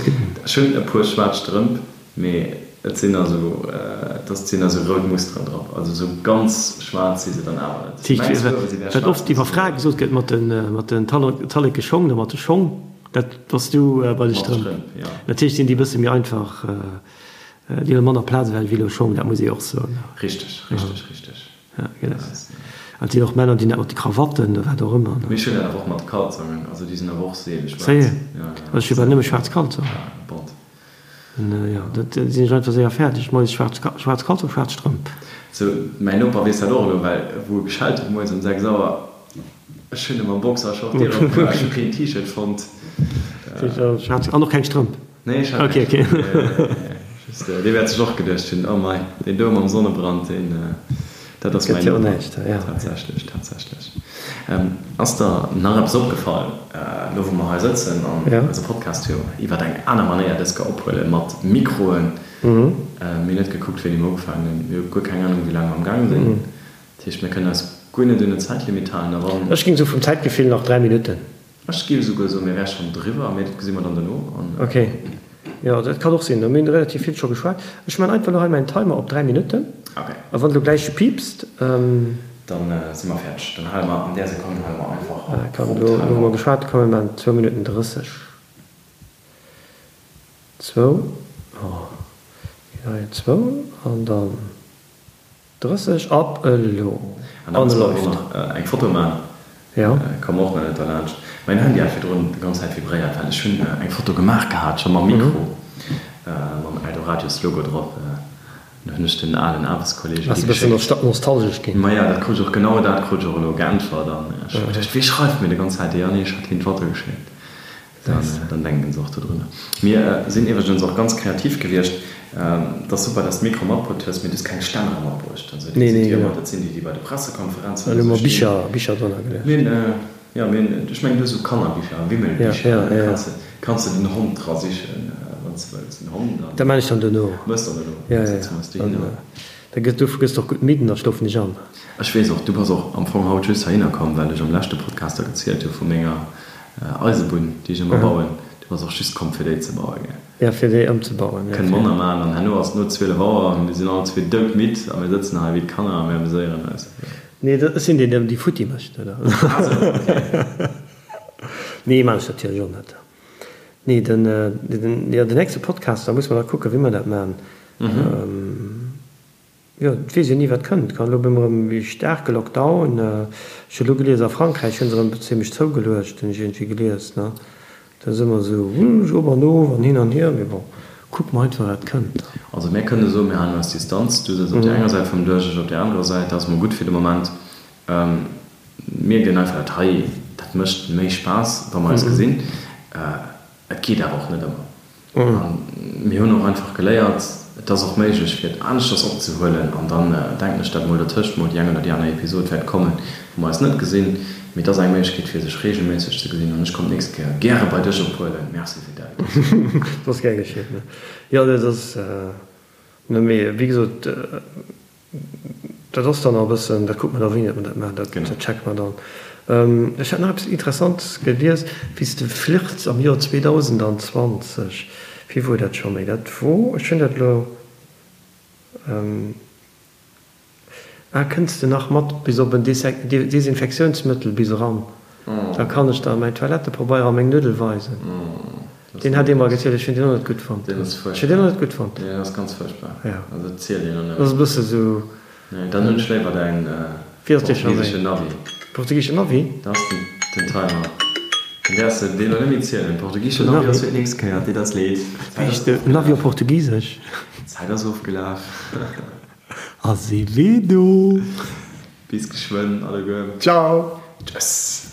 [SPEAKER 1] ech hunn e puer schwaarz Strëmp, mee et sinn also, et ass, et sinn also rout Musteren drop, also esou ganz schwaarz si se dann awer net.
[SPEAKER 2] Dat heescht, wat oft iwwer Frae gesot gëtt mat den, mat den talleke Schong oder mat de Schong, Dat bass du bei de Strëmp. Natierlech sinn déi e bësse méi einfach, déi huele manner Plaz ewech wéi elo Schong, dat muss ee och soen.
[SPEAKER 1] Richteg, richteg, richteg.
[SPEAKER 2] Ja, genau. An et sinn och Männer, déi hunn dat mat de Krawatten oder wat och ëmmer.
[SPEAKER 1] Mee ech hunn dat awer och mat de Kalzongen, also déi sinn awer och seele schwaarz.
[SPEAKER 2] Séier? Also ech hu bal nëmme schwaarz Kalzongen.
[SPEAKER 1] Ja, bont.
[SPEAKER 2] Jo, dat sinn ech einfach séier fäerdeg. Moies schwaarz, schwaarz Kalzong, schwaarz Strëmp.
[SPEAKER 1] Sou, mäin Noper weess dat och elo, well wou e geschellt huet moies um 6 Auer, ech hunn e mam Boxershort d'Dier opgemaach, ech hu keen T-Shirt fonnt.
[SPEAKER 2] Schwaarz an och keng Strëmp?
[SPEAKER 1] Nee, ech hat keng Strëmp. Just, dee wäert sech och geduecht hunn, oh mei, deen do mam Sonnebrand, deen. Dat ass mäin Noper. Tatsächlech, tatsächlech. Ass der nach eppes opgefall, elo wou mer hei sëtzen an eise Podcast jo iwwer eng aner Manéier dës Kéier ophuelen, mat Mikroen? Mir hunn net gekuckt, wéini mer ugefaangen hunn. Mir hu guer keng Anung, wéi laang mer am Gaang sinn. Dat heescht, mir kënnen eis Guer net un en Zäitlimit halen a wann.
[SPEAKER 2] Ech géing sou vum Zäitgefill nach 3 Minutten.
[SPEAKER 1] Ech géif esouguer soen, mir wäre schonn driwwer, mee dat gesi mer dann dono an.
[SPEAKER 2] Ok, jo dat kann och sinn. Mir hunn relativ vill scho geschwat. Ech man einfach elo hei mäin Timer op 3 Minutten.
[SPEAKER 1] Ok.
[SPEAKER 2] A wann elo gläich piipst.
[SPEAKER 1] Dann si mer fäerdeg. Dann hale mer an där Sekonn hale mer einfach op.
[SPEAKER 2] Komm, elo hu mer geschwat. Komm mir maachen zwou Minutten 30. Zwou, oh, hei zwou an dann. 30 ab elo!
[SPEAKER 1] An da musse mer och nach eng Foto man.
[SPEAKER 2] Jo.
[SPEAKER 1] Komm och nach net derlaanscht. Mäin Handy hat virdrun déi ganz Zäit vibréiert, well ech hunn eng Foto gemaach gehat, scho mam Mikro, mam Eldoradio Logo drop. An hunn ech den alen Aarbechtskolleegen
[SPEAKER 2] déi geschéckt. Bass e bëssen nostalgesch ginn?
[SPEAKER 1] Maja, dat krut ech och, genau dat krut ech och elo geäntwert. An ech hu geduecht, wee schreift mir déi ganz Zäit? Jo, nee, ech hat him d'Foto geschéckt. Dann denken se och dodrunner. Mir sinn iwwregens och ganz kreativ gewiescht. Et ass super, dass de Mikro matbruet hues, mee du hues keng Stännere matbruecht. Also déi sinn déi ëmmer, dat sinn déi, déi bei de Pressekonferenzen
[SPEAKER 2] oder sou stinn. Bicher drënner geluecht.
[SPEAKER 1] Mir hunn, jo, mir hunn, ech mengen, du hues esou Kannerbicher, Wimmelbicher, da kanns de, kanns de den Hond dra sichen, wann s de wëlls. Den Hond an.
[SPEAKER 2] Dat maan ech dann dono.
[SPEAKER 1] Mëss dann dono.
[SPEAKER 2] Ja, ja, ja. Da gëss, du gëss och gutt midd an da schlofen ech an.
[SPEAKER 1] Ech weess och, du bass och am Fong haut just heihinner komm, well ech am leschte Podcast der gezielt hu vu menger Eisebunn, déi ech ëmmer bauen. Du bass och just komm, fir déi ze bauen, gell?
[SPEAKER 2] Jo, fir déi ëmzebauen, jo.
[SPEAKER 1] Kënne manner maachen an herno ass et no 12 Auer an mir sinn all zwee doudmidd a mir sëtzen hei wéi d'Kanner a mir ameséieren eis.
[SPEAKER 2] Nee, ech sinn deen, deen déi futti mécht, oder?
[SPEAKER 1] Ah sou, okay.
[SPEAKER 2] Nee, maan ech natierlech och net. Nee, den, den, jo, den nächste Podcast, da musse mer nach kucken, wéi mer dat maachen. Jo, et weess een ni wat kënnt. Kann elo op eemol erëm e staarke Lockdown. Ech hu elo gelies, a Frankräich hu se erëm zimlech zougeluecht, hunn ech iergendwéi gelies, ne. Dat ass ëmmer esou op an of an hin an hier, mee bon, kucke mer einfach wat kënnt.
[SPEAKER 1] Also mär kënne soen, mir halen eis Distanz. Du sëtz op där enger Säit vum Dësch, ech op där anerer Säit. Dat ass mol gutt fir de Moment. Mir ginn einfach dat hei, dat mécht méi Spaass, wa mer eis gesinn. Et geet awer och net ëmmer. A mir hunn och einfach geléiert, et ass och méiglech, fir et aneschters opzehuelen. An dann denken ech, datt mol dertëscht mol déi eng oder déi aner Episod wäert kommen, wou mer eis net gesinn. Mee et ass eng Méiglechkeet, fir sech reegelméisseg ze gesinn. An ech komm d'nächst Kéier gäre bei dech ophuelen. Merci fir
[SPEAKER 2] d'Invitatioun. Dat ass gär geschitt. Jo, dat ass, mee wéi gesot, Dat ass dann nach e bëssen, dat kucke mer da wéini datt mer dat maachen, dat checke mer dann. Ech hat nach eppes Interessantes gelies, wéi s de flirts am Joer 2020, wéi wor dat scho méi? Dat wor, ech hunn dat elo, ah, kënns de nach mat bis op en Desinfektiounsmëttel bis eran? Da kann ech der mäin Toilettepabeier a meng Nuddel weisen. Deen hat ee mer gezielt, ech hunn deen och net gutt fonnt.
[SPEAKER 1] Deen ass
[SPEAKER 2] Ech hunn deen och net gutt fonnt.
[SPEAKER 1] Deen ass ganz fuerchtbar.
[SPEAKER 2] Ja.
[SPEAKER 1] Also dat zielt een och
[SPEAKER 2] net. Dat ass e bësse sou.
[SPEAKER 1] Nee, dann hunn ech léiwer däin
[SPEAKER 2] portugiseschen Navi. Portugiseschen Navi?
[SPEAKER 1] Dat ass den Timer. Dann däerfs de deen elo net méi zielen. Portugiseschen Navi ass fir d'nächst Kéier. Deet eis leed.
[SPEAKER 2] Wéi heescht de Navi op Portugisesch?
[SPEAKER 1] D'Zäit ass ofgelaf.
[SPEAKER 2] Azevedo!
[SPEAKER 1] Bis geschwënn alleguer.
[SPEAKER 2] Ciao!
[SPEAKER 1] Tschëss!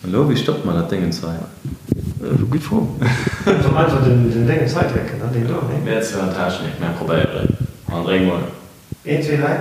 [SPEAKER 1] An elo, wéi stoppt mer dat Déngens hei?
[SPEAKER 2] Gutt Fro. Soll mer einfach den Déngens hei drécken, ne? Deen do, nee?
[SPEAKER 1] Mir zwar an Technik, mä probéieren. An dréck mol.
[SPEAKER 2] Een, zwee, dräi.